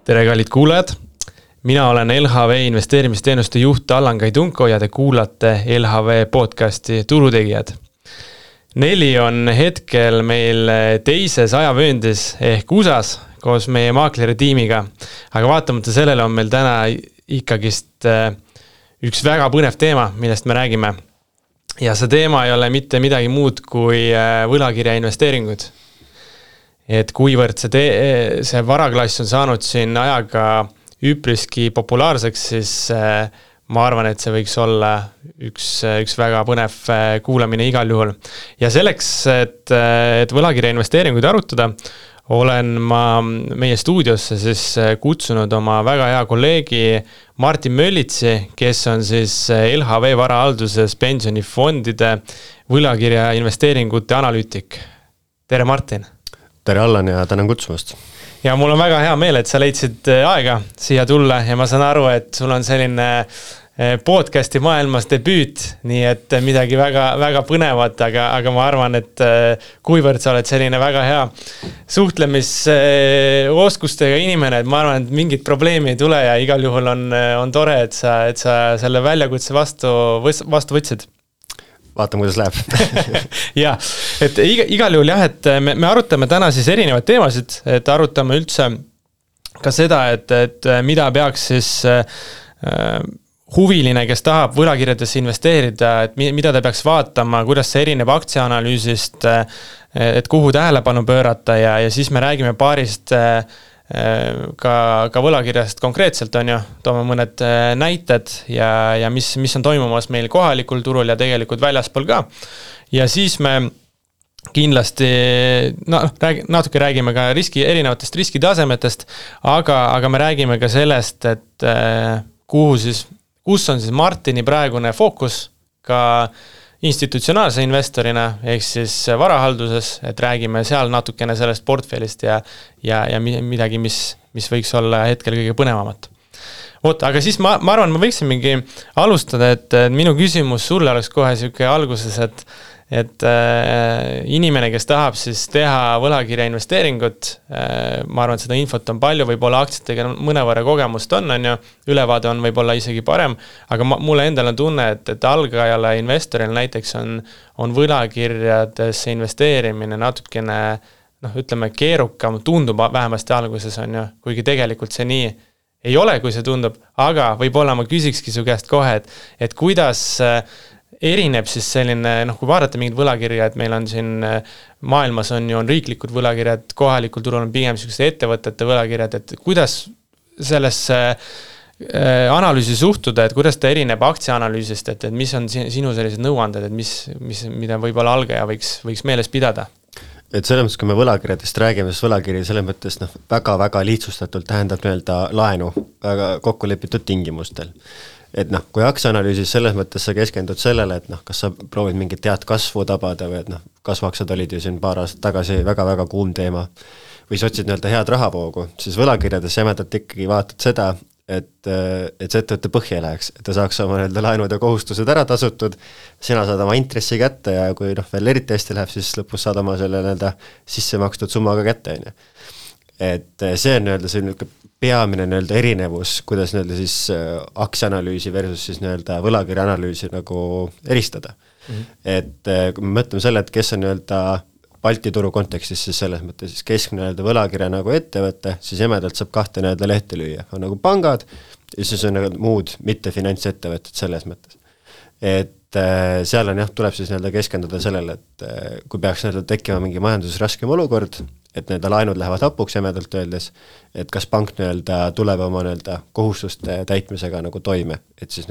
Tere kallid kuulajad, mina olen LHV investeerimisteenuste juht Allan Kaidunko ja te kuulate LHV podcasti Turutegijad. Neli on hetkel meil teises ajavööndis ehk USAs koos meie maakleri tiimiga, aga vaatamata sellele on meil täna ikkagist üks väga põnev teema, millest me räägime. Ja see teema ei ole mitte midagi muud kui võlakirja investeeringud. Et kuivõrd see varaklass on saanud siin ajaga üpriski populaarseks, siis ma arvan, et see võiks olla üks väga põnev kuulamine igal juhul. Ja selleks, et võlakirja investeeringuid arutada, olen ma meie stuudiosse siis kutsunud oma väga hea kolleegi Martin Möllitsi, kes on siis LHV varahalduses pensionifondide võlakirja investeeringute analüütik. Tere Martin! Tere Allan ja tänan kutsumast. Ja mul on väga hea meel, et sa leidsid aega siia tulla ja ma saan aru, et sul on selline podcasti maailmas debüüt, nii et midagi väga, väga põnevat, aga ma arvan, et kuivõrd sa oled selline väga hea suhtlemisoskustega inimene, et ma arvan, et mingit probleemi ei tule ja igal juhul on tore, et sa selle väljakutse vastu võtsid. Vaatame, kuidas läheb. Ja, et igal juhul jah, et me arutame täna siis erinevaid teemasid, et arutame üldse ka seda, et mida peaks siis huviline, kes tahab võlakirjadesse investeerida, et mida ta peaks vaatama, kuidas see erineb aktsiaanalüüsist, et kuhu tähelepanu pöörata ja siis me räägime paarist ka võlakirjast konkreetselt on ju, toome mõned näited ja mis on toimumas meil kohalikul turul ja tegelikult väljaspool ka. Ja siis me kindlasti natuke räägime ka erinevatest riskitasemetest, aga me räägime ka sellest, et kus on siis Martini praegune fookus ka institutsionaalse investorina, ehk siis varahalduses, et räägime seal natukene sellest portfellist ja midagi, mis võiks olla hetkel kõige põnevamat. Aga siis ma arvan, ma võiksimegi alustada, et minu küsimus sulle oleks kohe selline alguses, et inimene, kes tahab siis teha võlakirja investeeringut, ma arvan, et seda infot on palju, võib-olla aktsiatega mõnevõrra kogemust on ju, ülevaade on võib-olla isegi parem, aga mulle endal on tunne, et algajale investoril näiteks on võlakirjadesse investeerimine natukene, ütleme, keerukam, tundub vähemasti alguses on ju, kuigi tegelikult see nii ei ole, kui see tundub, aga võib-olla ma küsikski su käest kohe, et kuidas erineb siis selline, kui vaadata mingid võlakirja, et meil on siin maailmas on riiklikud võlakirjad, kohalikul turul on pigem sellised ettevõtete võlakirjad, et kuidas sellesse analüüsi suhtuda, et kuidas ta erineb aktsiaanalüüsist, et mis on sinu sellised nõuanded, et mida võib-olla algaja võiks meeles pidada? Et selles mõttes, kui me võlakirjadest räägime, siis võlakiri selles mõttes väga-väga lihtsustatult tähendab laenu väga kokkulepitud tingimustel. Et kui aktsiaanalüüsis selles mõttes sa keskendud sellele, et kas sa proovid mingit head kasvu tabada või et kasvaksad olid ju siin paar aastat tagasi väga-väga kuum teema või sa otsid head rahavoogu, siis võlakirjades jämedalt ikkagi vaatad seda, et see ettevõtte põhja läheks, et ta saaks oma laenud ja kohustused ära tasutud, sina saad oma intressi kätte ja kui veel eriti hästi läheb, siis lõpus saad oma selle sisse makstud summaga kätte. Et see on selline peamine erinevus, kuidas siis aktsiaanalüüsi versus siis võlakirja analüüsi eristada. Et kui me mõtleme selle, et kes on Balti turu kontekstis, siis selles mõttes siis keskne võlakirja ettevõte, siis jämedalt saab kahte lehte lüüa. On pangad ja siis on muud mitte finantsettevõtted selles mõttes. Et seal on tuleb siis keskenduda sellele, et kui peaks tekkima mingi majanduses raskem olukord, et laenud lähevad hapuks jämedalt öeldes, et kas pank tuleb oma kohustuste täitmisega toime, et siis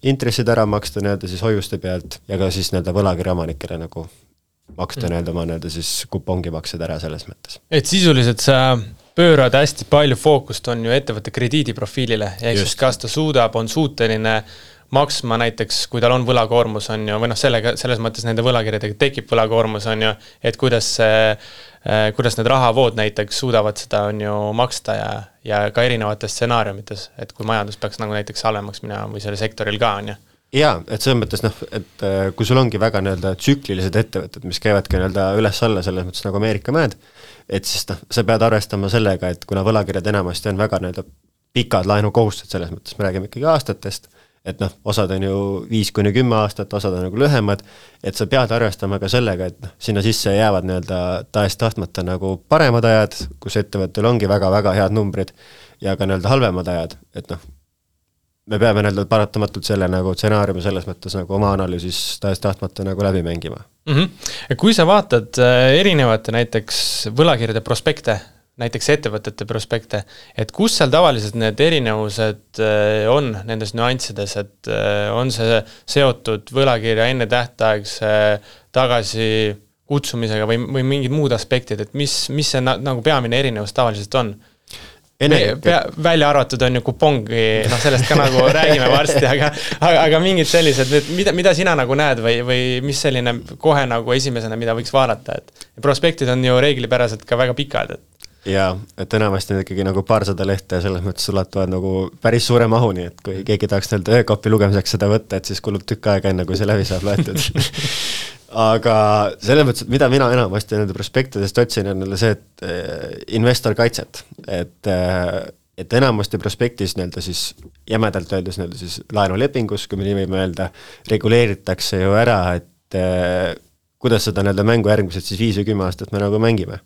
intressid ära maksta siis hoiuste pealt ja ka siis võlakirja omanikele maksta oma siis kupongimaksed ära selles mõttes. Et sisuliselt sa pöörad hästi palju fookust on ju ettevõtte krediidiprofiilile, ehk siis kas ta on suuteline maksma näiteks, kui tal on võlakoormus on ju, või selles mõttes nende võlakirjadega tekib võlakoormus on ju, et kuidas need rahavood näiteks suudavad seda on ju maksta ja ka erinevates stsenaariumites, et kui majandus peaks näiteks halvemaks minema või selle sektoril ka on ju. jaa, et selles mõttes et kui sul ongi väga nii-öelda tsüklilised ettevõtted, mis käivadki nii-öelda üles-alla selles mõttes nagu Ameerika mäed, et siis sa pead arvestama sellega, et kuna võlakirjad enamasti on väga nii-öelda pikad laenukohustused, selles mõttes me räägime ikkagi aastatest, et osad on ju 5-10 aastat, osad on nagu lühemad, et sa pead arvestama ka sellega, et sinna sisse jäävad nii-öelda tahes-tahtmata nagu paremad ajad, kus ettevõttel ongi väga-väga head numbrid ja ka nii-öelda halvemad ajad, et me peame nii-öelda paratamatult selle nagu stsenaariumi selles mõttes nagu oma analüüsis tahes-tahtmata nagu läbi mängima. Kui sa vaatad erinevate näiteks võlakirjade prospekte, näiteks ettevõtete prospekte, et kus seal tavaliselt need erinevused on nendes nüanssides, et on see seotud võlakirja enne tähtaegse tagasi kutsumisega või mingid muud aspektid, et mis see nagu peamine erinevus tavaliselt on? Välja arvatud on ju kupongi, sellest ka nagu räägime varsti, aga mingid sellised, mida sina nagu näed või mis selline kohe nagu esimesena, mida võiks vaadata, et prospektid on ju reeglipäraselt ka väga pikad, et jaa, et enamasti on ikkagi nagu paarsada lehte ja selles mõttes ulatuvad nagu päris suure mahuni, et kui keegi tahaks nii-öelda öökopi lugemiseks seda võtta, et siis kulub tükk aega enne, kui see läbi saab loetud. Aga selles mõttes, mida mina enamasti nende prospektidest otsin, on see, et investor kaitset, et enamasti prospektis nii-öelda siis jämedalt öeldes nii-öelda siis laenulepingus, kui me nii võime öelda, reguleeritakse ju ära, et kuidas seda nii-öelda mängu järgmised siis 5 või 10 aastat me nagu mängime.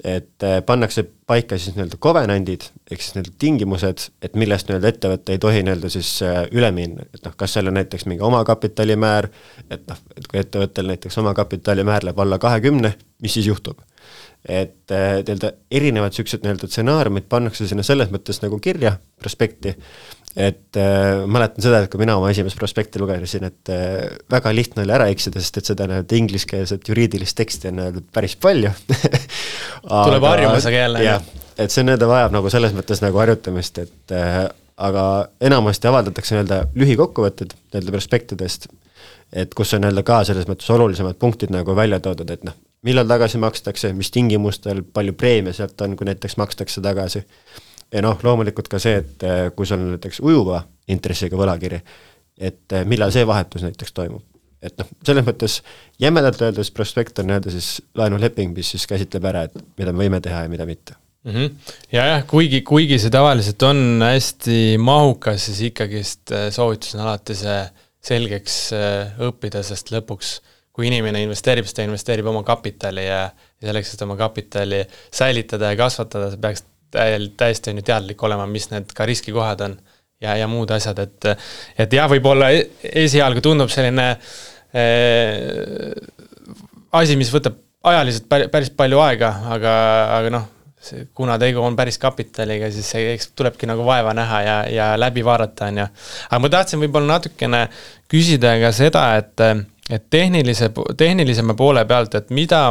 Et pannakse paika siis nii-öelda covenantid, ehk siis need tingimused, et millest nii-öelda ettevõtte ei tohi nii-öelda siis üle minna, et kas seal on näiteks mingi omakapitalimäär, et kui ettevõttel näiteks omakapitalimäär läheb alla 20, mis siis juhtub? Et nii-öelda erinevad sellised nii-öelda stsenaariumid pannakse sinna selles mõttes nagu kirja prospekti, et mäletan seda, et kui mina oma esimest prospekti lugesin, et väga lihtne oli ära eksida, sest et seda nii-öelda ingliskeelset juriidilist teksti on päris palju. Tuleb harjumusega jälle. Jah, et see nii-öelda vajab nagu selles mõttes nagu harjutamist, et aga enamasti avaldatakse nii-öelda lühikokkuvõtted nii-öelda prospektidest, et kus on nii-öelda ka selles mõttes olulisemad punktid nagu välja toodud, et millal tagasi makstakse, mis tingimustel, palju preemia sealt on, kui näiteks makstakse tagasi. Ja loomulikult ka see, et kui sul on näiteks ujuva intressiga võlakiri, et millal see vahetus näiteks toimub. Et selles mõttes jämedalt öeldes prospekt on nii-öelda siis laenuleping, mis siis käsitleb ära, et mida me võime teha ja mida mitte. Ja kuigi see tavaliselt on hästi mahukas, siis ikkagist soovitus on alati see selgeks õppida, sest lõpuks kui inimene investeerib, siis ta investeerib oma kapitali ja selleks, et oma kapitali säilitada ja kasvatada, see peaks täiesti on ju teadlik olema, mis need ka riskikohad on ja muud asjad, et jah, võib-olla esialgu tundub selline asi, mis võtab ajaliselt päris palju aega, aga kuna tegu on päris kapitaliga, siis eks tulebki nagu vaeva näha ja läbi vaadata on ju. Aga ma tahtsin võib-olla natukene küsida ka seda, et tehnilisema poole pealt, et mida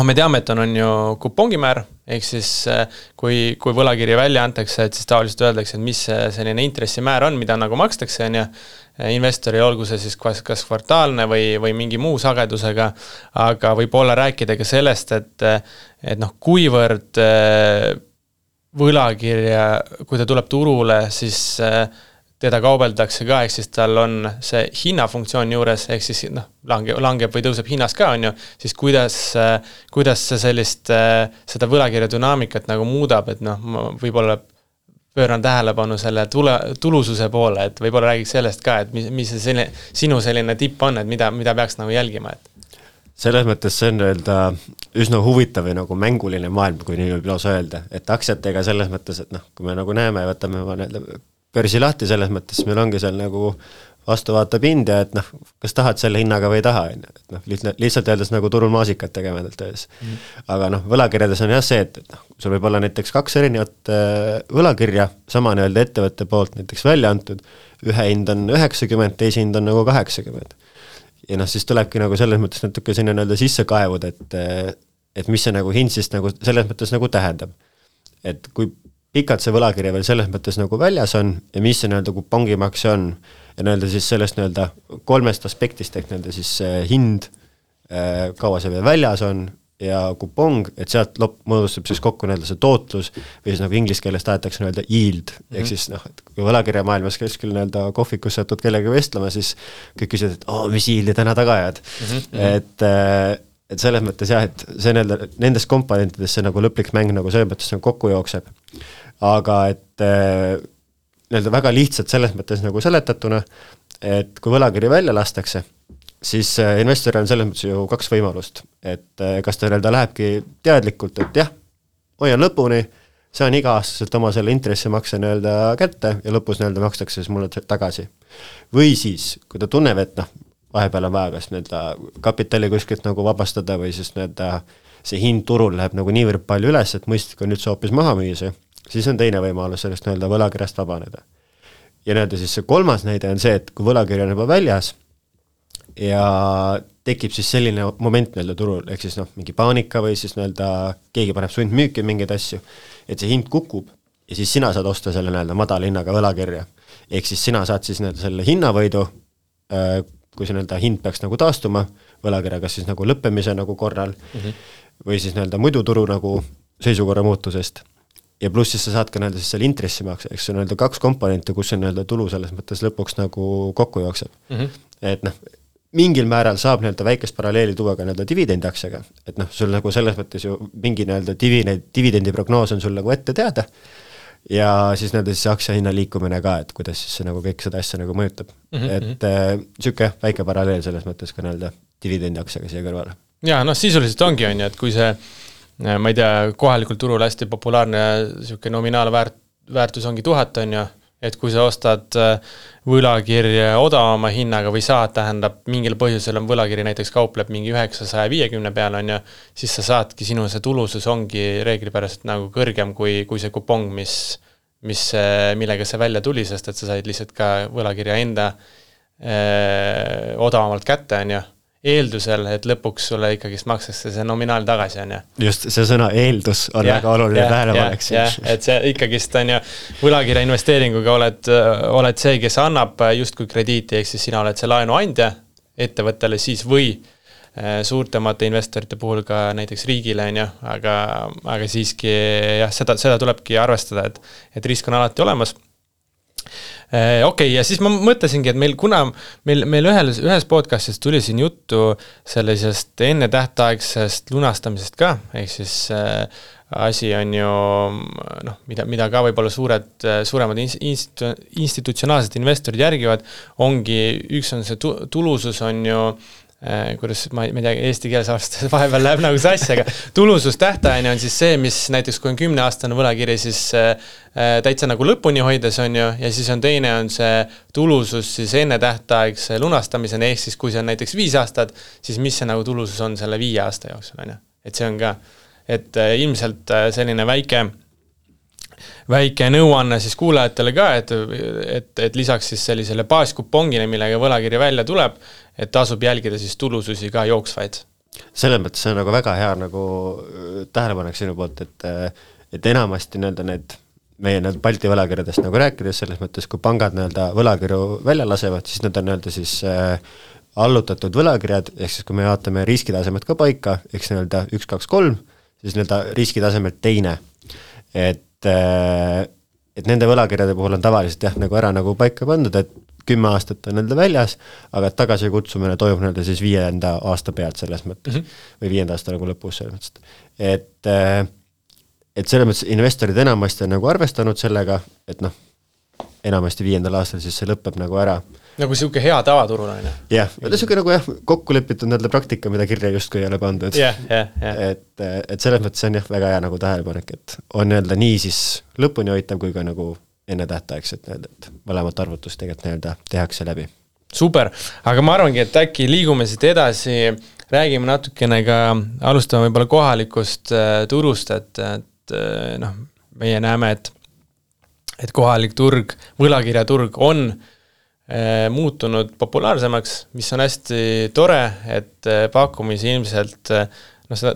me teame, et on ju kupongimäär, ehk siis kui võlakirja välja antakse, et siis tavaliselt öeldakse, et mis selline intressimäär on, mida nagu makstakse, on ju, investori olgu see siis kas kvartaalne või mingi muu sagedusega, aga võib-olla rääkida ka sellest, et kuivõrd võlakirja, kui ta tuleb turule, siis teda kaubeldakse ka, ehk siis tal on see hinnafunktsioon juures, ehk siis langeb või tõuseb hinnas ka, on ju, siis kuidas see seda võlakirja dünaamikat nagu muudab, et ma võib-olla pööran tähelepanu selle tulususe poole, et võib-olla räägiks sellest ka, et mis see sinu selline tipp on, et mida peaks nagu jälgima, et selles mõttes see on öelda üsna huvitav või nagu mänguline maailm, kui nii võib lausa öelda, et aktsiatega selles mõttes, et kui me nagu näeme, võtame börsi lahti selles mõttes, meil ongi seal nagu vastuvaatav hind ja et kas tahad selle hinnaga või ei taha, lihtsalt öeldes nagu turul maasikat tegemedalt öeldes. Aga võlakirjades on jah see, et sul võib olla näiteks 2 erinevat võlakirja, sama nii-öelda ettevõtte poolt näiteks välja antud, ühe hind on 90, teise hind on nagu 80. Ja siis tulebki nagu selles mõttes natuke sinna nii-öelda sisse kaevud, et mis see nagu hind siis nagu selles mõttes nagu tähendab. Et kui pikalt see võlakirja veel selles mõttes nagu väljas on ja mis see nii-öelda kupongimakse on ja nii-öelda siis sellest nii-öelda 3 aspektist ehk nii-öelda siis hind, kaua see veel väljas on, ja kupong, et sealt moodustab siis kokku nii-öelda see tootlus või siis nagu inglise keeles tahetakse nii-öelda yield, ehk siis noh, et kui võlakirja maailmas kuskil nii-öelda kohvikus satud kellega vestlema, siis kõik küsivad, et mis yieldi täna taga ajad. Et selles mõttes jah, et see nii-öelda nendes komponentides see nagu lõplik mäng nagu selles mõttes nagu kokku jookseb. Aga et nii-öelda väga lihtsalt selles mõttes nagu seletatuna, et kui võlakiri välja lastakse, siis investoril on selles mõttes ju 2 võimalust, et kas ta nii-öelda lähebki teadlikult, et jah, hoian lõpuni, saan iga-aastaselt oma selle intressimakse nii-öelda kätte ja lõpus nii-öelda makstakse siis mulle tagasi. Või siis, kui ta tunneb, et vahepeal on vaja kas nii-öelda kapitali kuskilt nagu vabastada või siis nii-öelda see hind turul läheb nagu niivõrd palju üles, et mõistlik on üldse hoopis maha müüa, siis on teine võimalus sellest nii-öelda võlakirjast vabaneda. Ja nii-öelda siis see 3. näide on see, et kui võlakiri on juba väljas, ja tekib siis selline moment nii-öelda turul, ehk siis mingi paanika või siis nii-öelda keegi paneb sundmüüki mingeid asju, et see hind kukub ja siis sina saad osta selle nii-öelda madala hinnaga võlakirja. Ehk siis sina saad siis nii-öelda selle hinnavõidu, kui see nii-öelda hind peaks nagu taastuma, võlakirja kas siis nagu lõppemise nagu korral või siis nii-öelda muidu turu nagu seisukorra muutusest. Ja pluss siis sa saad ka nii-öelda siis selle intressimakse, eks see on nii-öelda 2 komponenti, kus see nii-öelda tulu selles mõttes lõpuks nagu kokku jookseb. Et mingil määral saab nii-öelda väikest paralleeli tuua ka nii-öelda dividendiaktsiaga, et sul nagu selles mõttes ju mingi nii-öelda dividendi prognoos on sul nagu ette teada ja siis nii-öelda siis aktsia hinna liikumine ka, et kuidas siis see nagu kõik seda asja nagu mõjutab. Et siuke väike paralleel selles mõttes ka nii-öelda dividendiaktsiaga siia kõrvale. Ja sisuliselt ongi on ju, et kui see, ma ei tea, kohalikul turul hästi populaarne siuke nominaalväärtus ongi 1000 on ju, et kui sa ostad võlakirja odavama hinnaga või saad, tähendab mingil põhjusel on võlakiri näiteks kaupleb mingi 950 peal on ju, siis sa saadki, sinu see tulusus ongi reeglipäraselt nagu kõrgem kui see kupong, millega see välja tuli, sest et sa said lihtsalt ka võlakirja enda odavamalt kätte on ju, eeldusel, et lõpuks sulle ikkagi makstakse see nominaal tagasi, on ju. Just, see sõna eeldus on väga oluline tähelepanek. Et see ikkagist on ju, võlakirja investeeringuga oled see, kes annab justkui krediiti, ehk siis sina oled see laenuandja ettevõttele siis või suurtemate investorite puhul ka näiteks riigile, on ju, aga siiski jah, seda tulebki arvestada, et risk on alati olemas. Okei, ja siis ma mõtlesingi, et meil ühes podcastis tuli siin juttu sellisest enne tähtaegsest lunastamisest ka, ehk siis asi on ju, mida ka võib-olla suuremad institutsionaalsed investorid järgivad, ongi, üks on see tulusus on ju, kuidas ma ei tea, eesti keeles aastas vahepeal läheb nagu sassi, aga tulusus tähtajani on siis see, mis näiteks kui on 10-aastane võlakiri, siis täitsa nagu lõpuni hoides on ju, ja siis on teine on see tulusus siis enne tähtaegse lunastamiseni, ehk siis kui see on näiteks 5 aastat, siis mis see nagu tulusus on selle 5 aasta jooksul on ju, et see on ka, et ilmselt selline väike nõuanne siis kuulajatele ka, et lisaks siis sellisele baaskupongile, millega võlakiri välja tuleb, et tasub jälgida siis tulususi ka jooksvaid. Selles mõttes see on nagu väga hea nagu tähelepanek sinu poolt, et enamasti nii-öelda meie Balti võlakirjadest nagu rääkides, selles mõttes, kui pangad nii-öelda võlakirju välja lasevad, siis need on nii-öelda siis allutatud võlakirjad, ehk siis kui me vaatame riskitasemed ka paika, eks nii-öelda 1, 2, 3, siis nii-öelda riskitasemed teine, et nende võlakirjade puhul on tavaliselt jah, nagu ära nagu paika pandud, et 10 aastat on nende väljas, aga tagasi kutsumine toimub nende siis 5. aasta pealt selles mõttes, või 5. aasta nagu lõpus selles mõttes. Et selles mõttes investorid enamasti on nagu arvestanud sellega, et enamasti 5. aastal siis see lõpeb nagu ära. Nagu siuke hea tavaturul on. Jah, siuke nagu jah, kokku lepitud nende praktika, mida kirja justkui ei ole pandud. Et selles mõttes on jah, väga hea nagu tähelepanek, et on nii-öelda nii siis lõpuni hoitav kui ka nagu enne tähtaegset, et mõlemat arvutust tegelikult tehakse läbi. Super, aga ma arvangi, et äkki liigume siit edasi, räägime natukene ka, alustame võib-olla kohalikust turust, et meie näeme, et kohalik turg, võlakirjaturg on muutunud populaarsemaks, mis on hästi tore, et pakkumisi ilmselt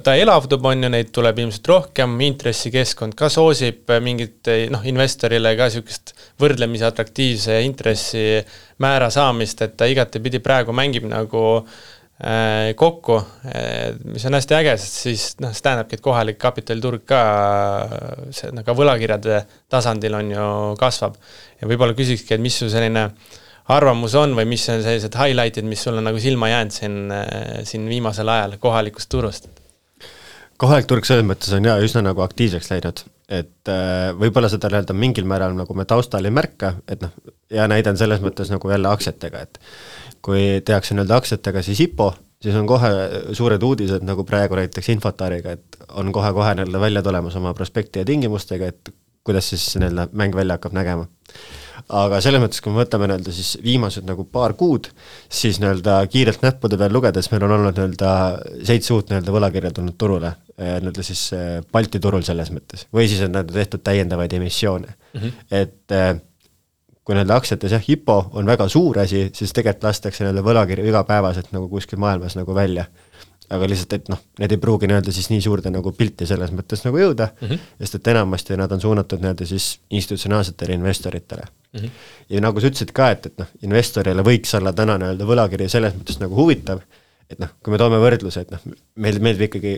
ta elavdub on ju, neid tuleb ilmselt rohkem, intressikeskkond ka soosib mingit investorile ka siukest võrdlemisi atraktiivse intressi määra saamist, et ta igatepidi praegu mängib nagu kokku, mis on hästi äge, sest siis see tähendabki, et kohalik kapitaliturg ka ka võlakirjade tasandil on ju kasvab. Ja võib-olla küsikski, et mis su selline arvamus on või mis on sellised highlightid, mis sul on nagu silma jäänud siin viimasel ajal kohalikust turust? Kohalik turg selles mõttes on üsna nagu aktiivseks läinud, et võib-olla seda mingil määral nagu me taustal ei märka, et ja näidan selles mõttes nagu jälle aktsiatega, et kui tehakse aktsiatega siis IPO, siis on kohe suured uudised nagu praegu näiteks Infotariga, et on kohe välja tulemas oma prospekti ja tingimustega, et kuidas siis mäng välja hakkab nägema. Aga selles mõttes, kui me võtame siis viimased nagu paar kuud, siis kiirelt näppude peal lugedes meil on olnud 7 uut võlakirja tulnud turule, siis Balti turul selles mõttes, või siis on tehtud täiendavaid emissioone. Et kui aktsiates IPO on väga suur asi, siis tegelikult lastakse võlakirju igapäevaselt nagu kuskil maailmas nagu välja. Aga lihtsalt, et need ei pruugi siis nii suurde nagu pilti selles mõttes nagu jõuda, sest et enamasti nad on suunatud siis institutsionaalsetele investoritele. Ja nagu sa ütlesid ka, et investorile võiks olla täna võlakiri selles mõttes nagu huvitav, et kui me toome võrdluse, et meil ikkagi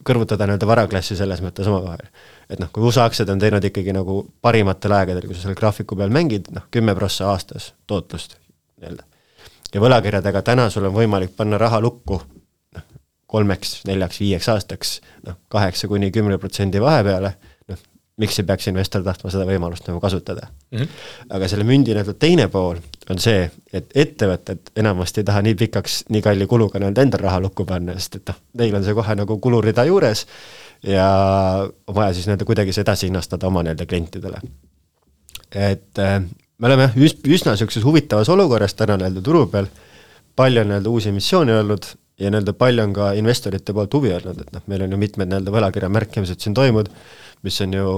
kõrvutada varaklassi selles mõttes oma vahel. Et kui USA aktsiad on teinud ikkagi nagu parimatel aegadel, kui sa selle graafiku peal mängid, 10% aastas tootlust. Ja võlakirjadega täna sul on võimalik panna raha lukku 3, 4, 5 aastaks 8–10% vahepeale, miks ei peaks investor tahtma seda võimalust nagu kasutada. Aga selle mündi teine pool on see, et ettevõtted enamasti ei taha nii pikaks, nii kalli kuluga enda raha lukku panna, sest et neil on see kohe nagu kulurida juures ja on vaja siis kuidagi see edasi hinnastada oma klientidele. Et me oleme üsna sellises huvitavas olukorras täna turu peal, palju on uusi emissioone olnud ja palju on ka investorite poolt huvi olnud, et meil on ju mitmed võlakirja märkimised siin toimud, mis on ju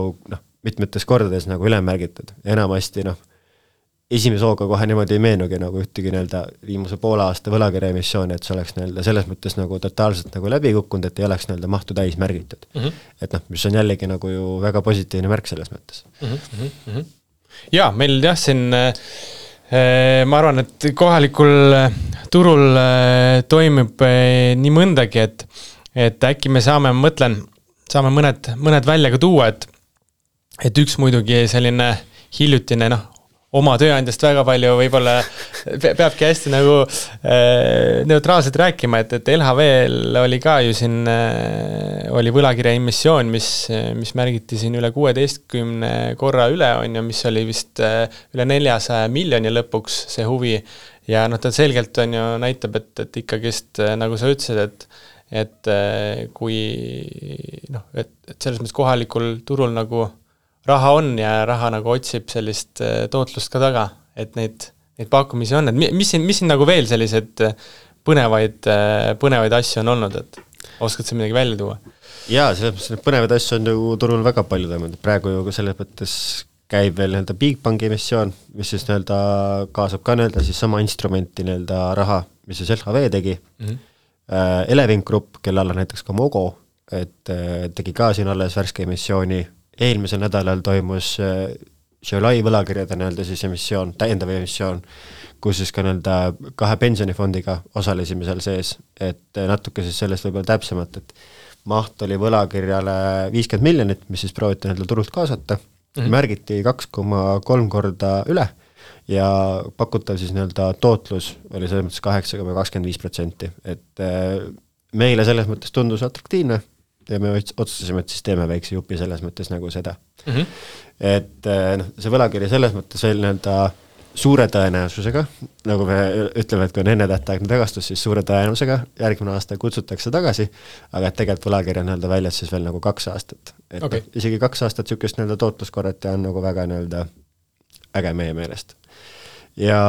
mitmetes kordades nagu ülemärgitud. Enamasti esimese hooga kohe niimoodi ei meenugi nagu ühtegi viimase poole aasta võlakirja emissiooni, et see oleks selles mõttes nagu totaalselt nagu läbi kukkunud, et ei oleks mahtu täis märgitud. Et mis on jällegi nagu ju väga positiivne märk selles mõttes. Ja, meil siin ma arvan, et kohalikul turul toimub nii mõndagi, et äkki me saame mõned välja ka tuua, et üks muidugi selline hiljutine, oma tööandjast väga palju võib-olla peabki hästi nagu neutraalselt rääkima, et LHV-l oli ka ju siin oli võlakirja emissioon, mis märgiti siin üle 16 korra üle on ja mis oli vist üle 400 miljoni lõpuks see huvi ja ta selgelt on ju näitab, et ikkagist nagu sa ütlesid, et kui et selles mõttes kohalikul turul nagu raha on ja raha nagu otsib sellist tootlust ka taga, et neid pakkumisi on, et mis siin nagu veel sellised põnevaid asju on olnud, et oskad sa midagi välja tuua? Jaa, selles mõttes põnevaid asju on ju turul väga palju toimunud, praegu ju selles mõttes käib veel Bigbanki emissioon, mis siis kaasab ka siis sama instrumenti raha, mis siis LHV tegi. Elevink Grupp, kelle alla näiteks ka Mogo, et tegi ka siin alles värske emissiooni. Eelmisel nädalal toimus Šiolai võlakirjade siis emissioon, täiendav emissioon, kus siis ka 2 pensionifondiga osalesime seal sees, et natuke siis sellest võib-olla täpsemalt, et maht oli võlakirjale 50 miljonit, mis siis prooviti turult kaasata, märgiti 2,3 korda üle ja pakutav siis tootlus oli selles mõttes 8,25%, et meile selles mõttes tundus atraktiivne ja me otsustasime, et siis teeme väikse jupi selles mõttes nagu seda. Et see võlakiri selles mõttes veel suure tõenäosusega, nagu me ütleme, et kui on enne tähtaegne tagastus, siis suure tõenäosusega järgmine aasta kutsutakse tagasi, aga et tegelikult võlakiri on väljas siis veel nagu 2 aastat. Et isegi 2 aastat sükest tootluskorret ja on nagu väga äge meie meelest. Ja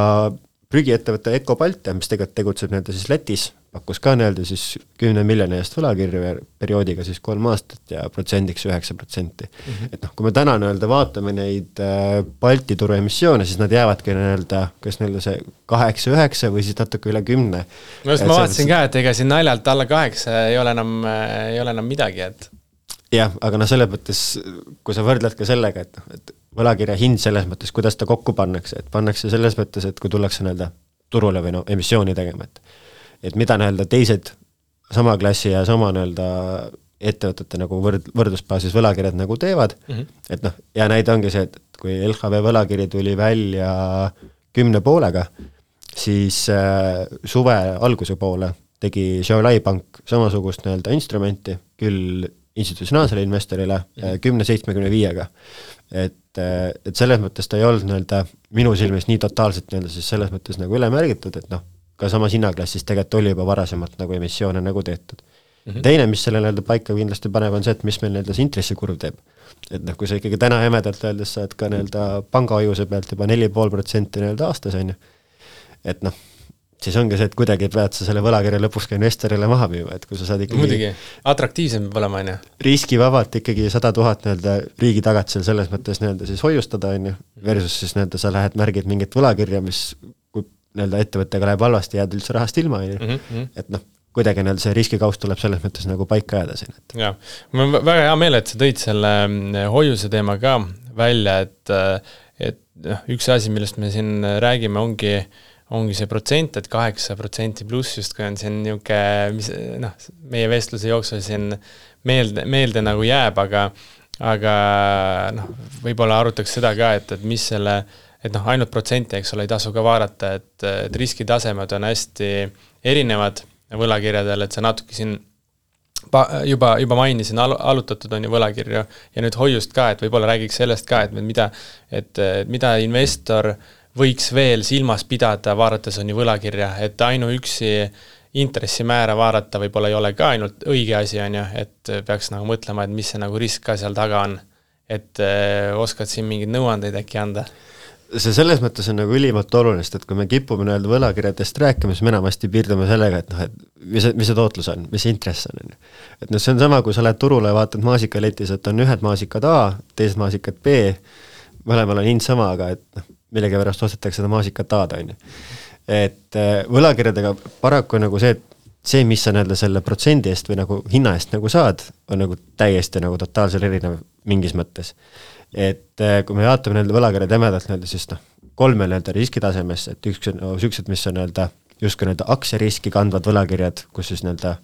prügiettevõtte Eko Baltia, mis tegelikult tegutseb siis Lätis, pakkus ka siis 10 miljoni eest võlakirju perioodiga siis 3 aastat ja protsendiks 9%. Et kui me täna vaatame neid Balti turu emissioone, siis nad jäävadki kas see 8-9 või siis natuke üle 10. Ma vaatasin ka, et ega siin naljalt alla 8 ei ole enam midagi, et jah, aga selles mõttes, kui sa võrdled ka sellega, et võlakirja hind selles mõttes, kuidas ta kokku pannakse, et pannakse selles mõttes, et kui tullakse turule või emissiooni tegema, et et mida nii-öelda teised sama klassi ja sama nii-öelda ettevõtete nagu võrdlusbaasis võlakirjad nagu teevad, et noh, ja näide ongi see, et kui LHV võlakiri tuli välja 10,5-ga, siis suve alguse poole tegi Xiaolai Pank samasugust nii-öelda instrumenti, küll institutsionaalsele investorile 10,75-ga. Et selles mõttes ta ei olnud nii-öelda minu silmis nii totaalselt nii-öelda siis selles mõttes nagu üle märgitud, et noh, ka samas hinnaklassis tegelikult oli juba varasemalt nagu emissioone nagu tehtud. Teine, mis selle nii-öelda paika kindlasti paneb, on see, et mis meil nii-öelda see intressikurv teeb. Et noh, kui sa ikkagi täna jämedalt öeldes saad ka nii-öelda pangahoiuse pealt juba 4,5% nii-öelda aastas on ju, et noh, siis ongi see, et kuidagi pead sa selle võlakirja lõpuks ka investorile maha müüma, et kui sa saad ikkagi muidugi, atraktiivsem peab olema, on ju. Riskivabalt ikkagi 100,000 nii-öelda riigi tagatisel selles mõttes nii-öelda siis hoiustada, on ju, versus siis nii-öelda sa lähed märgid mingit võlakirja, mis kui nii-öelda ettevõttega läheb halvasti, jääd üldse rahast ilma, on ju, et noh, kuidagi nii-öelda see riskikaust tuleb selles mõttes nagu paika jääda siin. Jaa, mul on väga hea meel, et sa tõid selle hoiuse teema ka välja, et üks asi, millest me siin räägime, ongi see protsent, et 8% pluss justkui on siin niuke, mis noh, meie vestluse jooksul siin meelde nagu jääb, aga noh, võib-olla arutaks seda ka, et mis selle, et noh, ainult protsenti, eks ole, ei tasu ka vaadata, et riskitasemed on hästi erinevad võlakirjadel, et see natuke siin juba mainisin, alutatud on ju võlakirju ja nüüd hoiust ka, et võib-olla räägiks sellest ka, et mida investor võiks veel silmas pidada, vaadates on ju võlakirja, et ainuüksi intressimäära vaadata võib-olla ei ole ka ainult õige asi, on ju, et peaks nagu mõtlema, et mis see nagu risk ka seal taga on. Et oskad siin mingid nõuandeid äkki anda? See selles mõttes on nagu ülimalt olulist, et kui me kipume nii-öelda võlakirjadest rääkima, siis me enamasti piirdume sellega, et noh, et mis see tootlus on, mis see intress on. Et noh, see on sama, kui sa lähed turule ja vaatad maasikaletis, et on ühed maasikad A, teised maasikad B, mõlemal on hind sama, aga et noh, millegi pärast ostetakse seda maasikat A-da, on ju. Et võlakirjadega paraku nagu see, mis sa nii-öelda selle protsendi eest või nagu hinna eest nagu saad, on nagu täiesti nagu totaalselt erinev mingis mõttes. Et kui me vaatame nii-öelda võlakirjad jämedalt nii-öelda, siis noh, 3 nii-öelda riskitasemes, et üks on süksed, mis on nii-öelda justkui nii-öelda aktsiariski kandvad võlakirjad, kus siis nii-öelda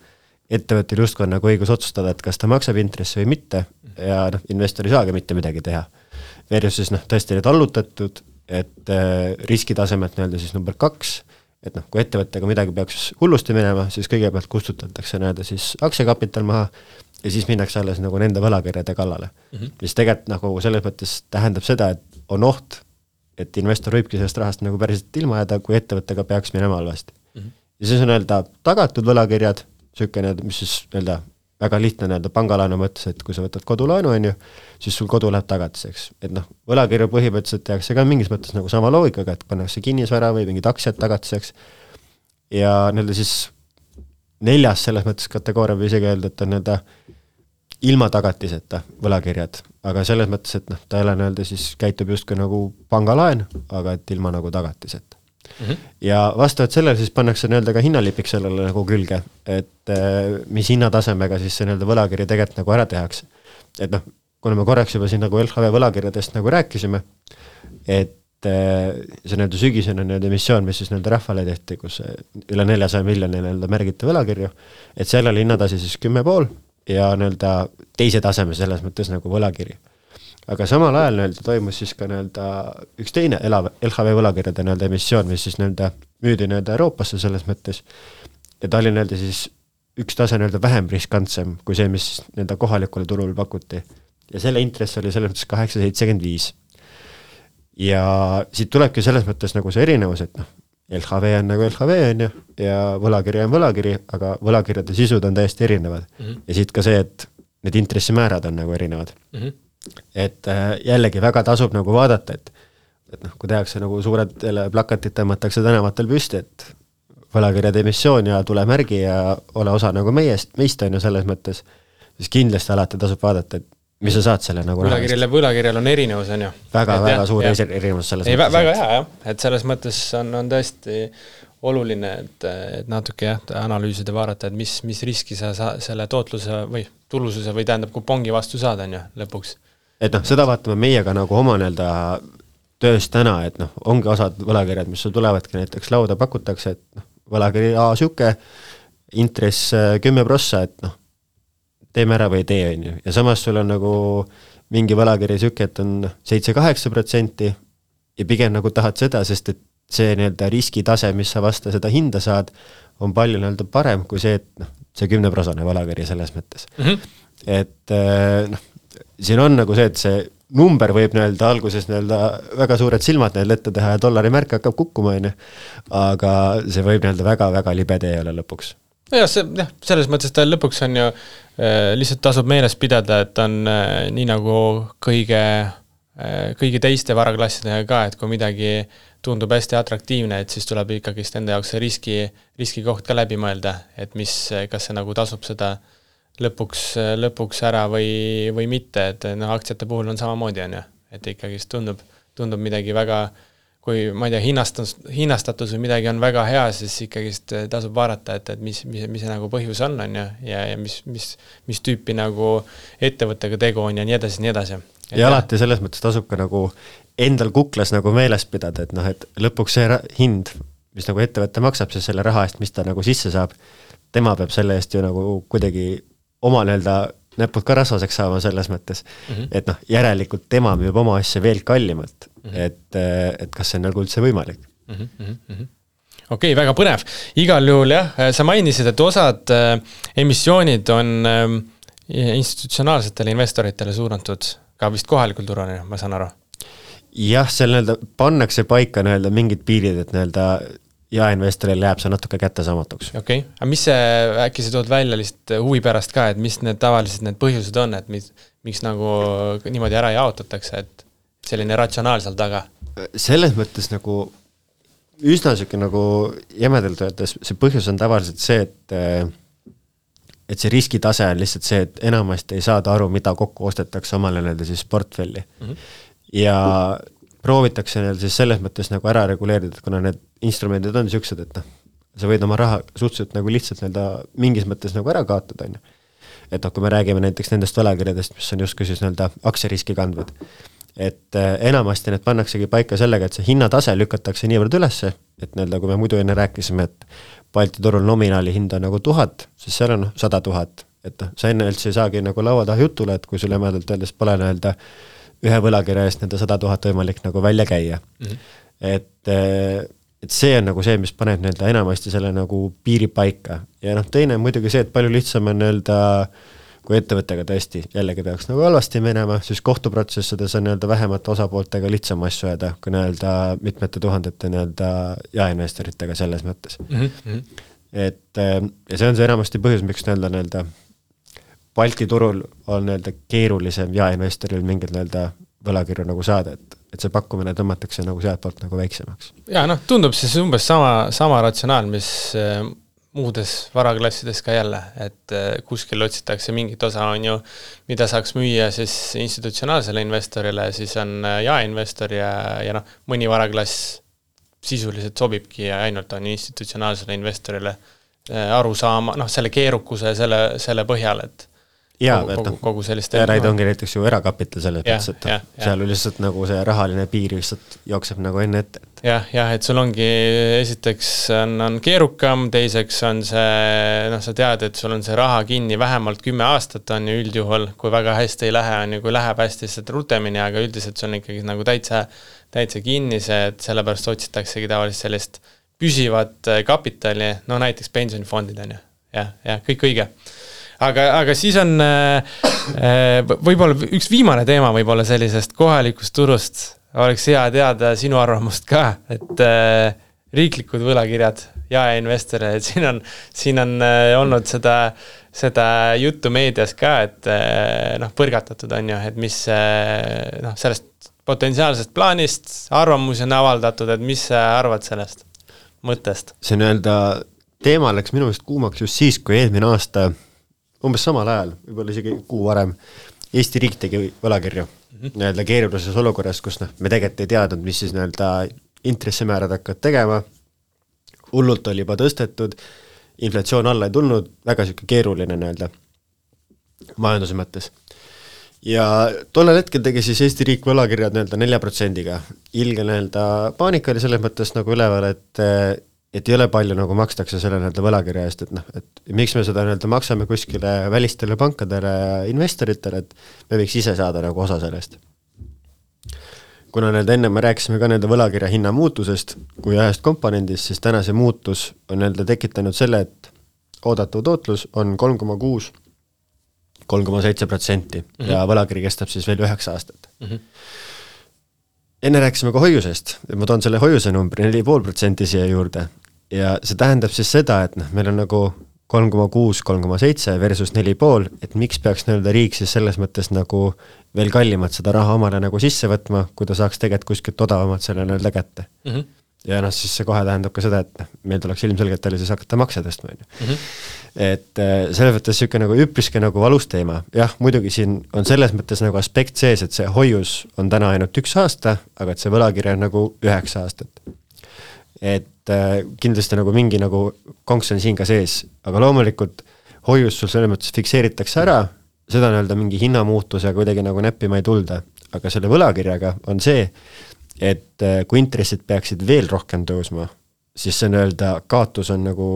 ettevõttel justkui on nagu õigus otsustada, et kas ta maksab intressi või mitte ja noh, investor ei saagi mitte midagi teha. Versus siis noh, tõesti need allutatud, et riskitasemed nii-öelda siis number 2, et noh, kui ettevõttega midagi peaks hullusti minema, siis kõigepealt kustutatakse nii-öelda siis aktsiakapital maha ja siis minnakse alles nagu nende võlakirjade kallale. Mis tegelikult nagu selles mõttes tähendab seda, et on oht, et investor võibki sellest rahast nagu päriselt ilma jääda, kui ettevõttega peaks minema halvasti. Ja siis on nii-öelda tagatud võlakirjad, mis siis nii-öelda väga lihtne nii-öelda pangalaenu mõttes, et kui sa võtad kodulaenu, on ju, siis sul kodu läheb tagatiseks. Et noh, võlakirju põhimõtteliselt tehakse ka mingis mõttes nagu sama loogikaga, et pannakse kinnisvara või mingid aktsiad tagatiseks. Ja nii-öelda siis 4. selles mõttes kategooria või isegi öelda, et on nii-öelda ilma tagatiseta võlakirjad, aga selles mõttes, et noh, ta ei ole nii-öelda siis käitub justkui nagu pangalaen, aga et ilma nagu tagatiseta. Ja vastavalt sellele siis pannakse nii-öelda ka hinnalipik sellele nagu külge, et mis hinnatasemega siis see nii-öelda võlakirja tegelikult nagu ära tehakse. Et noh, kuna me korraks juba siin nagu LHV võlakirjadest nagu rääkisime, et see nii-öelda sügisene nii-öelda emissioon, mis siis nii-öelda rahvale tehti, kus üle 400 miljoni nii-öelda märgiti võlakirju, et seal oli hinnatasi siis 10,5 ja nii-öelda teise taseme selles mõttes nagu võlakiri. Aga samal ajal nii-öelda toimus siis ka nii-öelda üks teine LHV võlakirjade nii-öelda emissioon, mis siis nii-öelda müüdi nii-öelda Euroopasse selles mõttes. Ja ta oli nii-öelda siis üks tase nii-öelda vähem riskantsem kui see, mis nii-öelda kohalikule turul pakuti. Ja selle intress oli selles mõttes 8,75. Ja siit tulebki selles mõttes nagu see erinevus, et noh, LHV on nagu LHV on ju, ja võlakiri on võlakiri, aga võlakirjade sisud on täiesti erinevad. Ja siit ka see, et need intressimäärad on nagu erinevad. Et jällegi väga tasub nagu vaadata, et noh, kui tehakse nagu suured plakatid tõmmatakse tänavatel püsti, et võlakirjade emissioon ja tule märgi ja ole osa nagu meist on ju selles mõttes, siis kindlasti alati tasub vaadata, et mis sa saad selle nagu võlakirjal on erinevus, on ju. Väga suur erinevus selles mõttes. Väga hea, jah. Et selles mõttes on tõesti oluline, et natuke analüüsida vaadata, et mis riski sa selle tootluse või tulususe või tähendab kupongi vastu saada, on ju, lõpuks. Et noh, seda vaatame meiega nagu oma nii-öelda töös täna, et noh, ongi osad võlakirjad, mis sul tulevadki näiteks lauda pakutakse, et noh, võlakiri siuke, intress 10%, et noh, teeme ära või ei tee, on ju. Ja samas sul on nagu mingi võlakiri siuke, et on 7-8% ja pigem nagu tahad seda, sest et see nii-öelda riskitase, mis sa vasta seda hinda saad, on palju nii-öelda parem kui see, et noh, see 10% võlakiri selles mõttes. Et noh, siin on nagu see, et see number võib nii-öelda alguses nii-öelda väga suured silmad neil ette teha ja dollari märk hakkab kukkuma, aga see võib nii-öelda väga-väga libe tee olla lõpuks. Selles mõttes ta lõpuks on ju lihtsalt tasub meeles pidada, et on nii nagu kõigi teiste varaklassidega ka, et kui midagi tundub hästi atraktiivne, et siis tuleb ikkagist enda jaoks see riskikoht ka läbi mõelda, et kas see nagu tasub seda lõpuks ära või mitte, et no, aktsiate puhul on samamoodi, on ju, et ikkagist tundub midagi väga, kui ma ei tea, hinnastatus või midagi on väga hea, siis ikkagist tasub vaadata, et mis see nagu põhjus on ju, ja mis tüüpi nagu ettevõttega tegu on ja nii edasi, nii edasi. Ja alati selles mõttes tasub ka nagu endal kuklas nagu meeles pidada, et noh, et lõpuks see hind, mis nagu ettevõtte maksab, siis selle raha eest, mis ta nagu sisse saab, tema peab selle eest ju nagu kuidagi oma nii-öelda näpud ka rasvaseks saama selles mõttes, et noh, järelikult tema müüb oma asja veel kallimalt, et kas see on nagu üldse võimalik. Okei, väga põnev. Igal juhul jah, sa mainisid, et osad emissioonid on institutsionaalsetele investoritele suunatud ka vist kohalikul turul, ma saan aru. Jah, seal nii-öelda pannakse paika nii-öelda mingid piirid, et nii-öelda jaeinvestoril jääb see natuke kättesaamatuks. Okei, aga mis see, äkki sa tood välja lihtsalt huvi pärast ka, et mis need tavaliselt need põhjused on, et miks nagu niimoodi ära jaotatakse, et selline ratsionaal seal taga? Selles mõttes nagu üsna siuke nagu jämedalt öeldes, see põhjus on tavaliselt see, et see riskitase on lihtsalt see, et enamasti ei saada aru, mida kokku ostetakse omale nii-öelda siis portfelli. Ja proovitakse neil siis selles mõttes nagu ära reguleerida, et kuna need instrumendid on siuksed, et noh, sa võid oma raha suhteliselt nagu lihtsalt nii-öelda mingis mõttes nagu ära kaotada, on ju. Et noh, kui me räägime näiteks nendest võlakirjadest, mis on justkui siis nii-öelda aktsiariski kandvad, et enamasti need pannaksegi paika sellega, et see hinnatase lükatakse niivõrd ülesse, et nii-öelda kui me muidu enne rääkisime, et Balti turul nominaali hind on nagu 1000, siis seal on 100 000, et noh, sa enne üldse ei saagi nagu laua taha jutule, et kui sul jämedalt öeldes pole nii-öelda ühe võlakirja eest nende 100 000 võimalik nagu välja käia. Et see on nagu see, mis paneb nii-öelda enamasti selle nagu piiri paika. Ja noh, teine on muidugi see, et palju lihtsam on nii-öelda, kui ettevõttega tõesti jällegi peaks nagu halvasti minema, siis kohtuprotsessides on nii-öelda vähemate osapooltega lihtsam asju ajada, kui nii-öelda mitmete tuhandete nii-öelda jaeinvestoritega selles mõttes. Et ja see on see enamasti põhjus, miks nii-öelda Balti turul on nii-öelda keerulisem jaeinvestoril mingid nii-öelda võlakirju nagu saada, et see pakkumine tõmmatakse nagu sealt poolt nagu väiksemaks. Ja noh, tundub siis umbes sama ratsionaal, mis muudes varaklassides ka jälle, et kuskil otsitakse mingit osa on ju, mida saaks müüa siis institutsionaalsele investorile, siis on jaeinvestor ja noh, mõni varaklass sisuliselt sobibki ja ainult on institutsionaalsele investorile aru saama, noh, selle keerukuse selle põhjal, et kogu sellist Raid ongi näiteks ju erakapital selles mõttes, et seal lihtsalt nagu see rahaline piir lihtsalt jookseb nagu enne ette. Jah, et sul ongi esiteks on keerukam, teiseks on see, noh, sa tead, et sul on see raha kinni vähemalt 10 aastat on ju üldjuhul, kui väga hästi ei lähe, on ju, kui läheb hästi lihtsalt rutemini, aga üldiselt sul on ikkagi nagu täitsa kinni see, et sellepärast otsitaksegi tavaliselt sellist püsivat kapitali, no näiteks pensionifondid on ju, ja kõik õige. Aga siis on võib-olla üks viimane teema võib-olla sellisest kohalikust turust, oleks hea teada sinu arvamust ka, et riiklikud võlakirjad ja investorid, siin on olnud seda juttu meedias ka, et noh, põrgatatud on ju, et mis noh, sellest potentsiaalsest plaanist arvamusi on avaldatud, et mis sa arvad sellest mõttest? See nii-öelda teema läks minu meelest kuumaks just siis, kui eelmine aasta umbes samal ajal, võib-olla isegi kuu varem, Eesti riik tegi võlakirju nii-öelda keerulises olukorras, kus noh, me tegelikult ei teadnud, mis siis nii-öelda intressimäärad hakkavad tegema, hullult oli juba tõstetud, inflatsioon alla ei tulnud, väga siuke keeruline nii-öelda majanduse mõttes. Ja tollel hetkel tegi siis Eesti riik võlakirjad nii-öelda 4%-ga. Ilge nii-öelda paanika oli selles mõttes nagu üleval, et et ei ole palju nagu makstakse selle nii-öelda võlakirja eest, et noh, et miks me seda nii-öelda maksame kuskile välistele pankadele ja investoritele, et me võiks ise saada nagu osa sellest. Kuna nii-öelda enne me rääkisime ka nii-öelda võlakirja hinna muutusest kui ühest komponendist, siis täna see muutus on nii-öelda tekitanud selle, et oodatav tootlus on 3,6, 3,7% ja võlakiri kestab siis veel 9 aastat. Enne rääkisime ka hoiusest, ma toon selle hoiuse numbri 4,5% siia juurde ja see tähendab siis seda, et noh, meil on nagu 3,6, 3,7 versus 4,5, et miks peaks nii-öelda riik siis selles mõttes nagu veel kallimat seda raha omale nagu sisse võtma, kui ta saaks tegelikult kuskilt odavamat selle nii-öelda kätte. Ja noh, siis see kohe tähendab ka seda, et meil tuleks ilmselgelt oli siis hakata makse tõstma. Et selle mõttes siuke nagu üpriski nagu valus teema. Jah, muidugi siin on selles mõttes nagu aspekt sees, et see hoius on täna ainult 1 aasta, aga et see võlakirja on nagu 9 aastat. Et kindlasti nagu mingi nagu konks on siin ka sees, aga loomulikult hoius sul selles mõttes fikseeritakse ära, seda nii-öelda mingi hinnamuutusega kuidagi nagu näppima ei tulda, aga selle võlakirjaga on see, et kui intressid peaksid veel rohkem tõusma, siis see nii-öelda kaotus on nagu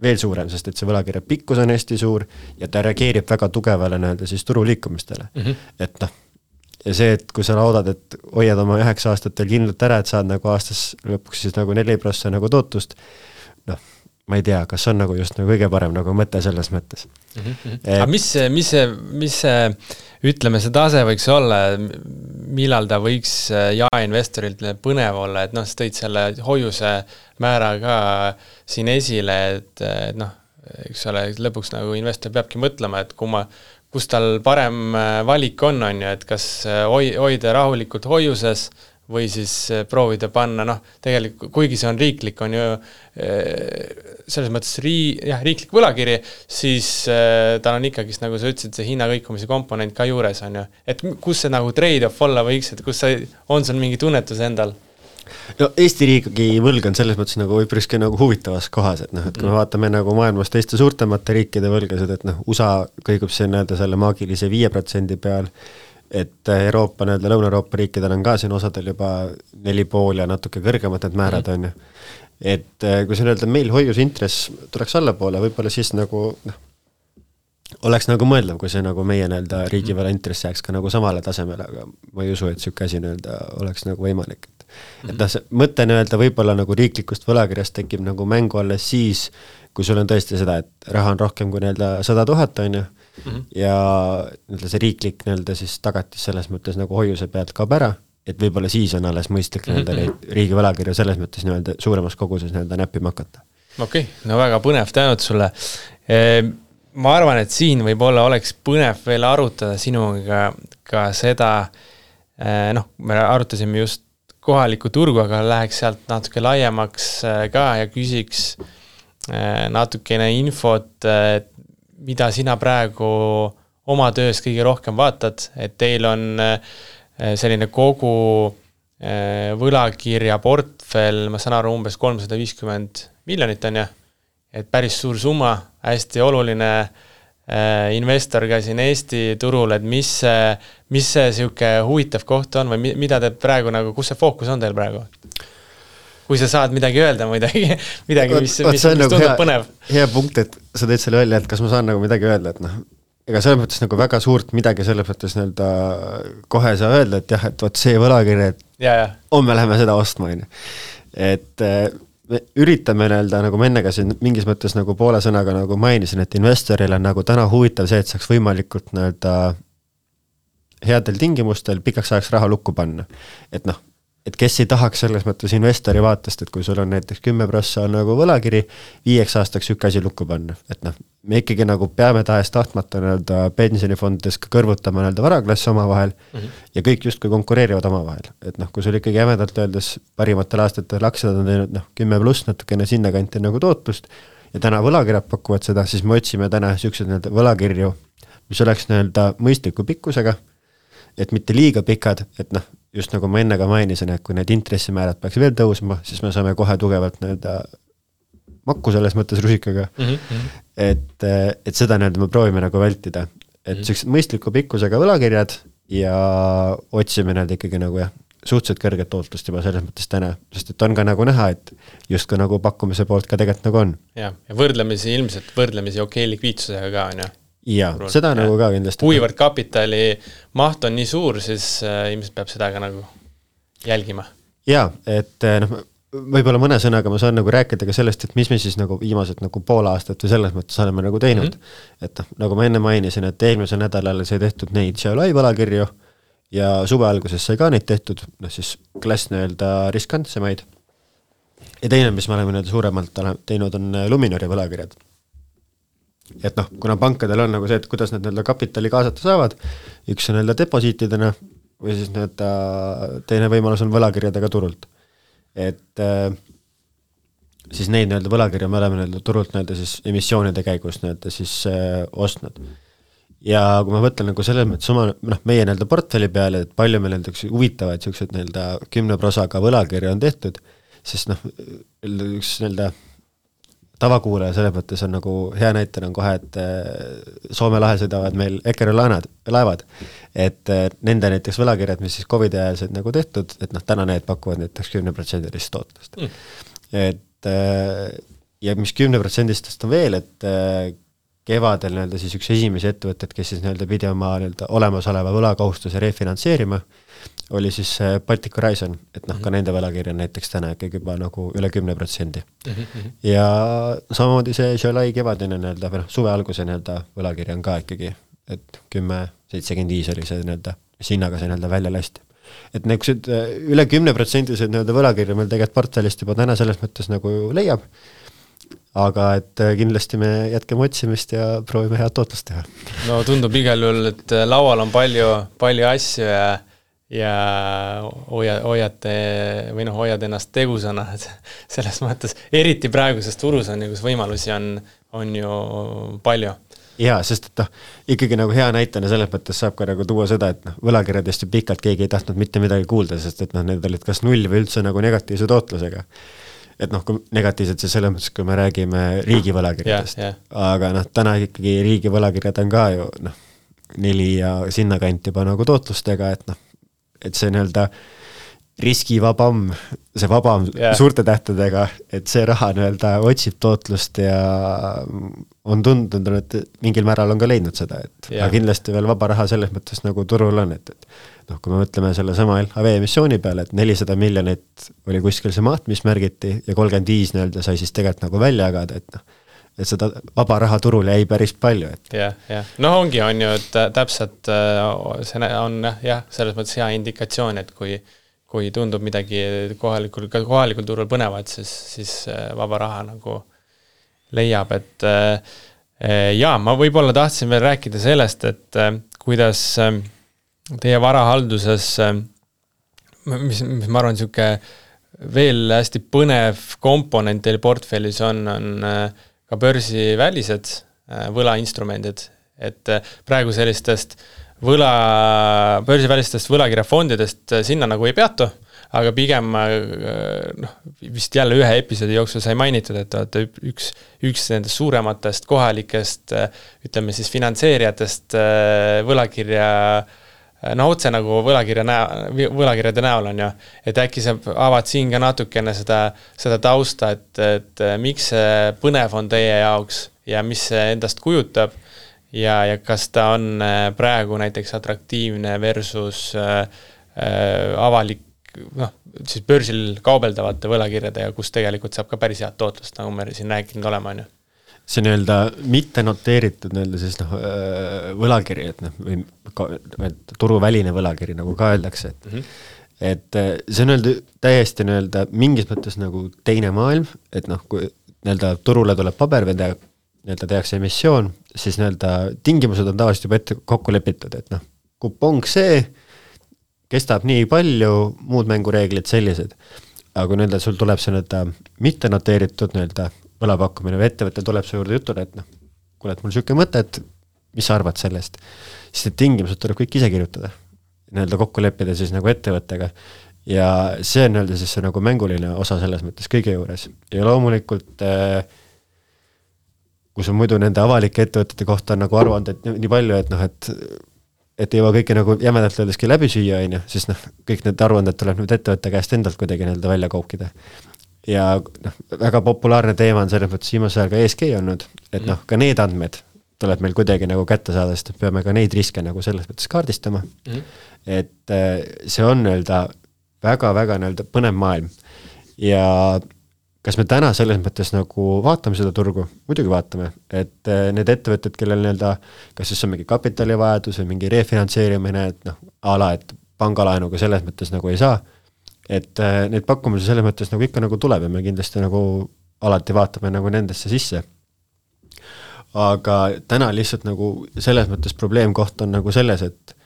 veel suurem, sest et see võlakirja pikkus on hästi suur ja ta reageerib väga tugevale nii-öelda siis turuliikumistele. Et noh, ja see, et kui sa loodad, et hoiad oma 9 aastat veel kindlalt ära, et saad nagu aastas lõpuks siis nagu 4% nagu tootust, noh, ma ei tea, kas on nagu just nagu kõige parem nagu mõte selles mõttes. Aga mis see, ütleme, see tase võiks olla, millal ta võiks jaeinvestorilt põnev olla, et noh, sa tõid selle hoiuse määra ka siin esile, et noh, eks ole, lõpuks nagu investor peabki mõtlema, et kus tal parem valik on ju, et kas hoida rahulikult hoiuses või siis proovida panna, noh, tegelikult, kuigi see on riiklik, on ju selles mõttes riiklik võlakiri, siis tal on ikkagi, nagu sa ütlesid, see hinnakõikumise komponent ka juures on ju. Et kus see nagu trade-off olla võiks, et kus on sul mingi tunnetus endal? No Eesti riigi võlg on selles mõttes nagu üpriski nagu huvitavas kohas, et noh, et kui me vaatame nagu maailmas teiste suurtemate riikide võlgasid, et noh, USA kõigub see nii-öelda selle maagilise 5% peal, et Euroopa, nii-öelda Lõuna-Euroopa riikidel on ka siin osadel juba 4,5 ja natuke kõrgemad need määrad on ju. Et kui see nii-öelda meil hoiusintress tuleks allapoole, võib-olla siis nagu noh, oleks nagu mõeldav, kui see nagu meie nii-öelda riigivõla intress jääks ka nagu samale tasemele, aga ma ei usu, et siuke asi nii-öelda oleks nagu võimalik. Et noh, see mõte nii-öelda võib-olla nagu riiklikust võlakirjast tekib nagu mängu alles siis, kui sul on tõesti seda, et raha on rohkem kui nii-öelda 100 000 on ju, ja nii-öelda see riiklik nii-öelda siis tagatis selles mõttes nagu hoiuse pealt kaob ära, et võib-olla siis on alles mõistlik nii-öelda neid riigi võlakirja selles mõttes nii-öelda suuremas koguses nii-öelda näppima hakata. Okei, no väga põnev tänud sulle. Ma arvan, et siin võib-olla oleks põnev veel arutada sinuga ka seda, noh, me arutasime just kohalikku turgu, aga läheks sealt natuke laiemaks ka ja küsiks natukene infot, mida sina praegu oma töös kõige rohkem vaatad, et teil on selline kogu võlakirja portfell, ma saan aru, umbes 350 miljonit on ju, et päris suur summa, hästi oluline investor ka siin Eesti turul, et mis see siuke huvitav koht on või mida te praegu nagu, kus see fookus on teil praegu? Kui sa saad midagi öelda, midagi mis tundub nagu põnev. Hea punkt, et sa teed selle välja, et kas ma saan nagu midagi öelda, et noh, ega selles mõttes nagu väga suurt midagi selles mõttes nii-öelda kohe saa öelda, et jah, et võt see võlakirja, et homme läheme seda ostma, et me üritame nii-öelda, nagu ma ennega siin mingis mõttes nagu poole sõnaga nagu mainisin, et investoril on nagu täna huvitav see, et saaks võimalikult nii-öelda headel tingimustel pikaks ajaks raha lukku panna. Et noh, et kes ei tahaks selles mõttes investori vaatest, et kui sul on näiteks 10% on nagu võlakiri, 5 aastaks üks asi lukku panna. Et noh, me ikkagi nagu peame tahes tahtmata nii-öelda pensionifondides ka kõrvutama nii-öelda varaklassi omavahel ja kõik justkui konkureerivad omavahel. Et noh, kui sul ikkagi jämedalt öeldes parimatel aastatel aktsiad on teinud 10+ natukene sinna kanti nagu tootlust ja täna võlakirjad pakuvad seda, siis me otsime täna siuksed nii-öelda võlakirju, mis oleks nii-öelda mõistliku pikkusega, et mitte liiga pikad, et noh, just nagu ma enne ka mainisin, et kui need intressimäärad peaks veel tõusma, siis me saame kohe tugevalt nii-öelda makku selles mõttes rusikaga. Et seda nii-öelda me proovime nagu vältida. Et sellised mõistliku pikkusega võlakirjad ja otsime need ikkagi nagu jah, suhteliselt kõrget tootlust juba selles mõttes täna, sest et on ka nagu näha, et justkui nagu pakkumise poolt ka tegelikult nagu on. Ja ilmselt võrdlemisi okei likviidsusega ka on ju. Ja, seda nagu ka kindlasti. Kuivõrd kapitali maht on nii suur, siis ilmselt peab seda ka nagu jälgima. Ja, et võib-olla mõne sõnaga ma saan nagu rääkida ka sellest, et mis me siis nagu viimased nagu pool aastat või selles mõttes oleme nagu teinud. Et nagu ma enne mainisin, et eelmisel nädalal sai tehtud neid Xiaolai võlakirju ja suve alguses sai ka neid tehtud, siis klass riskantsemaid. Ja teine, mis me oleme suuremalt teinud, on Luminori võlakirjad. Et kuna pankadel on nagu see, et kuidas nad kapitali kaasata saavad, üks on deposiitidena või siis teine võimalus on võlakirjadega turult. Et siis neid võlakirja me oleme turult siis emissioonide käigus siis ostnud. Ja kui ma võtlen nagu selles mõttes meie portfelli peale, et palju meil huvitavaid sellised 10% võlakirja on tehtud, siis üks tavakuulaja selles mõttes on nagu hea näitel on kohe, et Soome lahe sõidavad meil Eckerö laevad, et nende näiteks võlakirjad, mis siis COVID ajal said nagu tehtud, et täna need pakuvad näiteks 10% tootlust. Et ja mis 10% on veel, et kevadel siis üks esimesi ettevõtted, kes siis pidi oma olemasoleva võlakohustuse refinantseerima, oli siis Baltic Horizon, et ka nende võlakirja näiteks täna ikkagi juba nagu üle 10%. Ja samamoodi see Xiaolai kevadine suve alguse võlakirja on ka ikkagi, et 10-75 oli see hinnaga see välja lasti. Et üle 10% võlakirja meil tegelikult portfellist juba täna selles mõttes nagu leiab, aga et kindlasti me jätkame otsimist ja proovime head tootlust teha. No tundub igal juhul, et laual on palju asju ja hoiad ennast tegusana, et selles mõttes, eriti praeguses turus on, kus võimalusi on ju palju. Jaa, sest et ikkagi nagu hea näitena selles mõttes saab ka nagu tuua seda, et võlakirjadest ju pikalt keegi ei tahtnud mitte midagi kuulda, sest et need olid kas null või üldse nagu negatiivse tootlusega. Et kui negatiivselt see selles mõttes, kui me räägime riigi võlakirjadest. Aga täna ikkagi riigi võlakirjad on ka ju 4 ja sinna kant juba nagu tootlustega, et see riskivabam, see vabam suurte tähtedega, et see raha otsib tootlust ja on tundunud, et mingil määral on ka leidnud seda, et kindlasti veel vaba raha selles mõttes nagu turul on, et kui me mõtleme selle sama LHV emissiooni peale, et 400 miljonit oli kuskil see maht, mis märgiti ja 35 sai siis tegelikult nagu välja jagada, et seda vaba raha turul jäi päris palju. Ongi on ju, et täpselt see on selles mõttes hea indikatsioon, et kui tundub midagi kohalikul turul põnevat, siis vaba raha nagu leiab, et ma võib-olla tahtsin veel rääkida sellest, et kuidas teie varahalduses, mis ma arvan, niisugune veel hästi põnev komponent teil portfellis on ka börsivälised võlainstrumendid, et praegu sellistest börsivälistest võlakirjafondidest sinna nagu ei peatu, aga pigem vist jälle ühe episoodi jooksul sai mainitud, et üks nendest suurematest kohalikest, ütleme siis finantseerijatest võlakirja, otse nagu võlakirjade näol on ju, et äkki sa avad siin ka natukene seda tausta, et miks see põnev on teie jaoks ja mis see endast kujutab ja kas ta on praegu näiteks atraktiivne versus avalik, siis börsil kaubeldavate võlakirjade ja kus tegelikult saab ka päris head tootlust, nagu me siin rääkinud olema, on ju. See mitte noteeritud siis võlakiri, või turuväline võlakiri, nagu ka öeldakse, et see on täiesti mingis mõttes nagu teine maailm, et kui turule tuleb paber või tehakse emissioon, siis tingimused on tavaliselt juba ette kokku lepitud, et kupong see, kestab nii palju, muud mängureeglid sellised. Aga kui sul tuleb see mitte noteeritud võlapakkumine või ettevõte tuleb su juurde jutule, et kuule, et mul siuke mõte, et mis sa arvad sellest, siis need tingimused tuleb kõik ise kirjutada, kokku leppida siis nagu ettevõttega ja see on siis see nagu mänguline osa selles mõttes kõige juures ja loomulikult kui sul muidu nende avalike ettevõtete kohta on nagu aruanded nii palju, et et ei jõua kõike nagu jämedalt öeldeski läbi süüa, on ju, siis noh, kõik need aruanded tuleb nüüd ettevõtte käest endalt kuidagi nii-öelda välja koukida. Ja noh, väga populaarne teema on selles mõttes viimasel ajal ka ESG olnud, et noh, ka need andmed tuleb meil kuidagi nagu kätte saada, sest peame ka neid riske nagu selles mõttes kaardistama. Et see on nii-öelda väga-väga nii-öelda põnev maailm. Ja kas me täna selles mõttes nagu vaatame seda turgu? Muidugi vaatame, et need ettevõtted, kellel nii-öelda, kas siis on mingi kapitalivajadus või mingi refinantseerimine, et noh, et pangalaenuga selles mõttes nagu ei saa, et neid pakkumisi selles mõttes nagu ikka nagu tuleb ja me kindlasti nagu alati vaatame nagu nendesse sisse. Aga täna lihtsalt nagu selles mõttes probleemkoht on nagu selles, et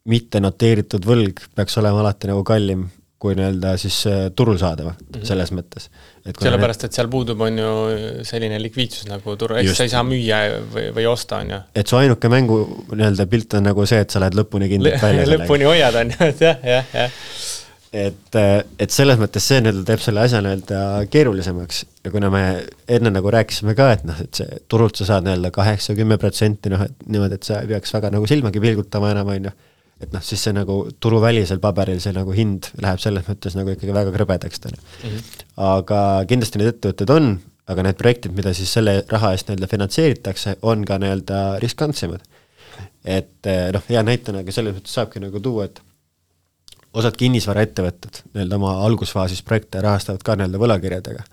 mitte noteeritud võlg peaks olema alati nagu kallim kui nii-öelda siis turul saadava selles mõttes. Sellepärast, et seal puudub on ju selline likviidsus nagu turul, eks sa ei saa müüa või osta on ju. Et su ainuke mängu nii-öelda pilt on nagu see, et sa lähed lõpuni kindlalt välja. Lõpuni hoiad on ju, et jah. Et selles mõttes see nii-öelda teeb selle asja nii-öelda keerulisemaks ja kuna me enne nagu rääkisime ka, et noh, et see turult sa saad nii-öelda 8-10%, noh, et niimoodi, et sa ei peaks väga nagu silmagi pilgutama enam, on ju. Et noh, siis see nagu turuvälisel paberil see nagu hind läheb selles mõttes nagu ikkagi väga krõbedaks täna. Aga kindlasti need ettevõtted on, aga need projektid, mida siis selle raha eest nii-öelda finantseeritakse, on ka nii-öelda riskantsemad. Et noh, hea näitanagi selles mõttes saabki nagu tuua, et osad kinnisvara ettevõtted nii-öelda oma algusfaasis projekte rahastavad ka nii-öelda võlakirjadega.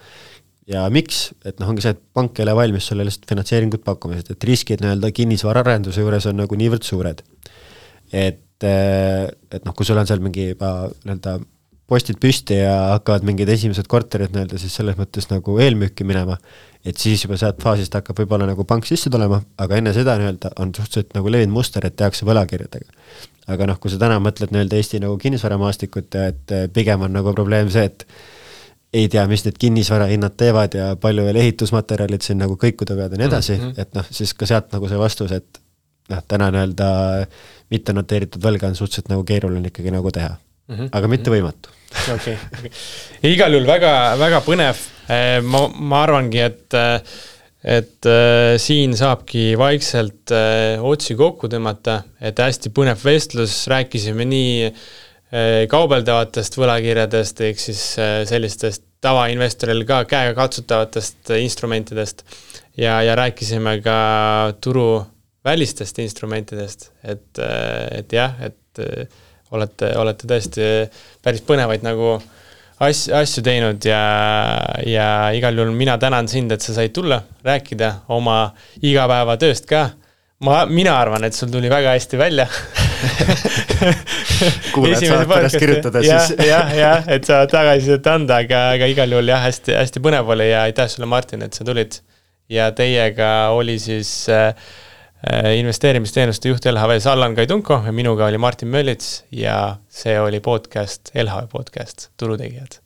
Ja miks? Et noh, ongi see, et pank ei ole valmis sulle lihtsalt finantseeringut pakkumised, et riskid nii-öelda kinnisvara arenduse juures on nagu niivõrd suured. Et noh, kui sul on seal mingi juba nii-öelda postid püsti ja hakkavad mingid esimesed korterid nii-öelda siis selles mõttes nagu eelmüüki minema, et siis juba sealt faasist hakkab võib-olla nagu pank sisse tulema, aga enne seda nii-öelda on suhteliselt nagu levinud muster, et tehakse võlakirjadega. Aga noh, kui sa täna mõtled nii-öelda Eesti nagu kinnisvaramaastikut, et pigem on nagu probleem see, et ei tea, mis need kinnisvara hinnad teevad ja palju veel ehitusmaterjalid siin nagu kõikuda pead ja nii edasi, et noh, siis ka sealt nagu see vastus, et noh, täna nii-öelda mitte noteeritud võlga on suhteliselt nagu keeruline ikkagi nagu teha. Aga mitte võimatu. Okay. Igal juhul väga, väga põnev. Ma arvangi, et siin saabki vaikselt otsi kokku tõmmata, et hästi põnev vestlus, rääkisime nii kaubeldavatest võlakirjadest, ehk siis sellistest tavainvestoril ka käega katsutavatest instrumentidest ja rääkisime ka turu välistest instrumentidest, et jah, et olete tõesti päris põnevaid nagu asju teinud ja igal juhul mina tänan sind, et sa said tulla, rääkida oma igapäeva tööst ka. Mina arvan, et sul tuli väga hästi välja. Kuuled saad pärast kirjutada siis. Jah, et sa tagasisidet anda, aga igal juhul jah, hästi põnev oli ja aitäh sulle, Martin, et sa tulid. Ja teiega oli siis investeerimisteenuste juht LHV-s Allan Kaidunko ja minuga oli Martin Möllits ja see oli podcast, LHV podcast, Turutegijad.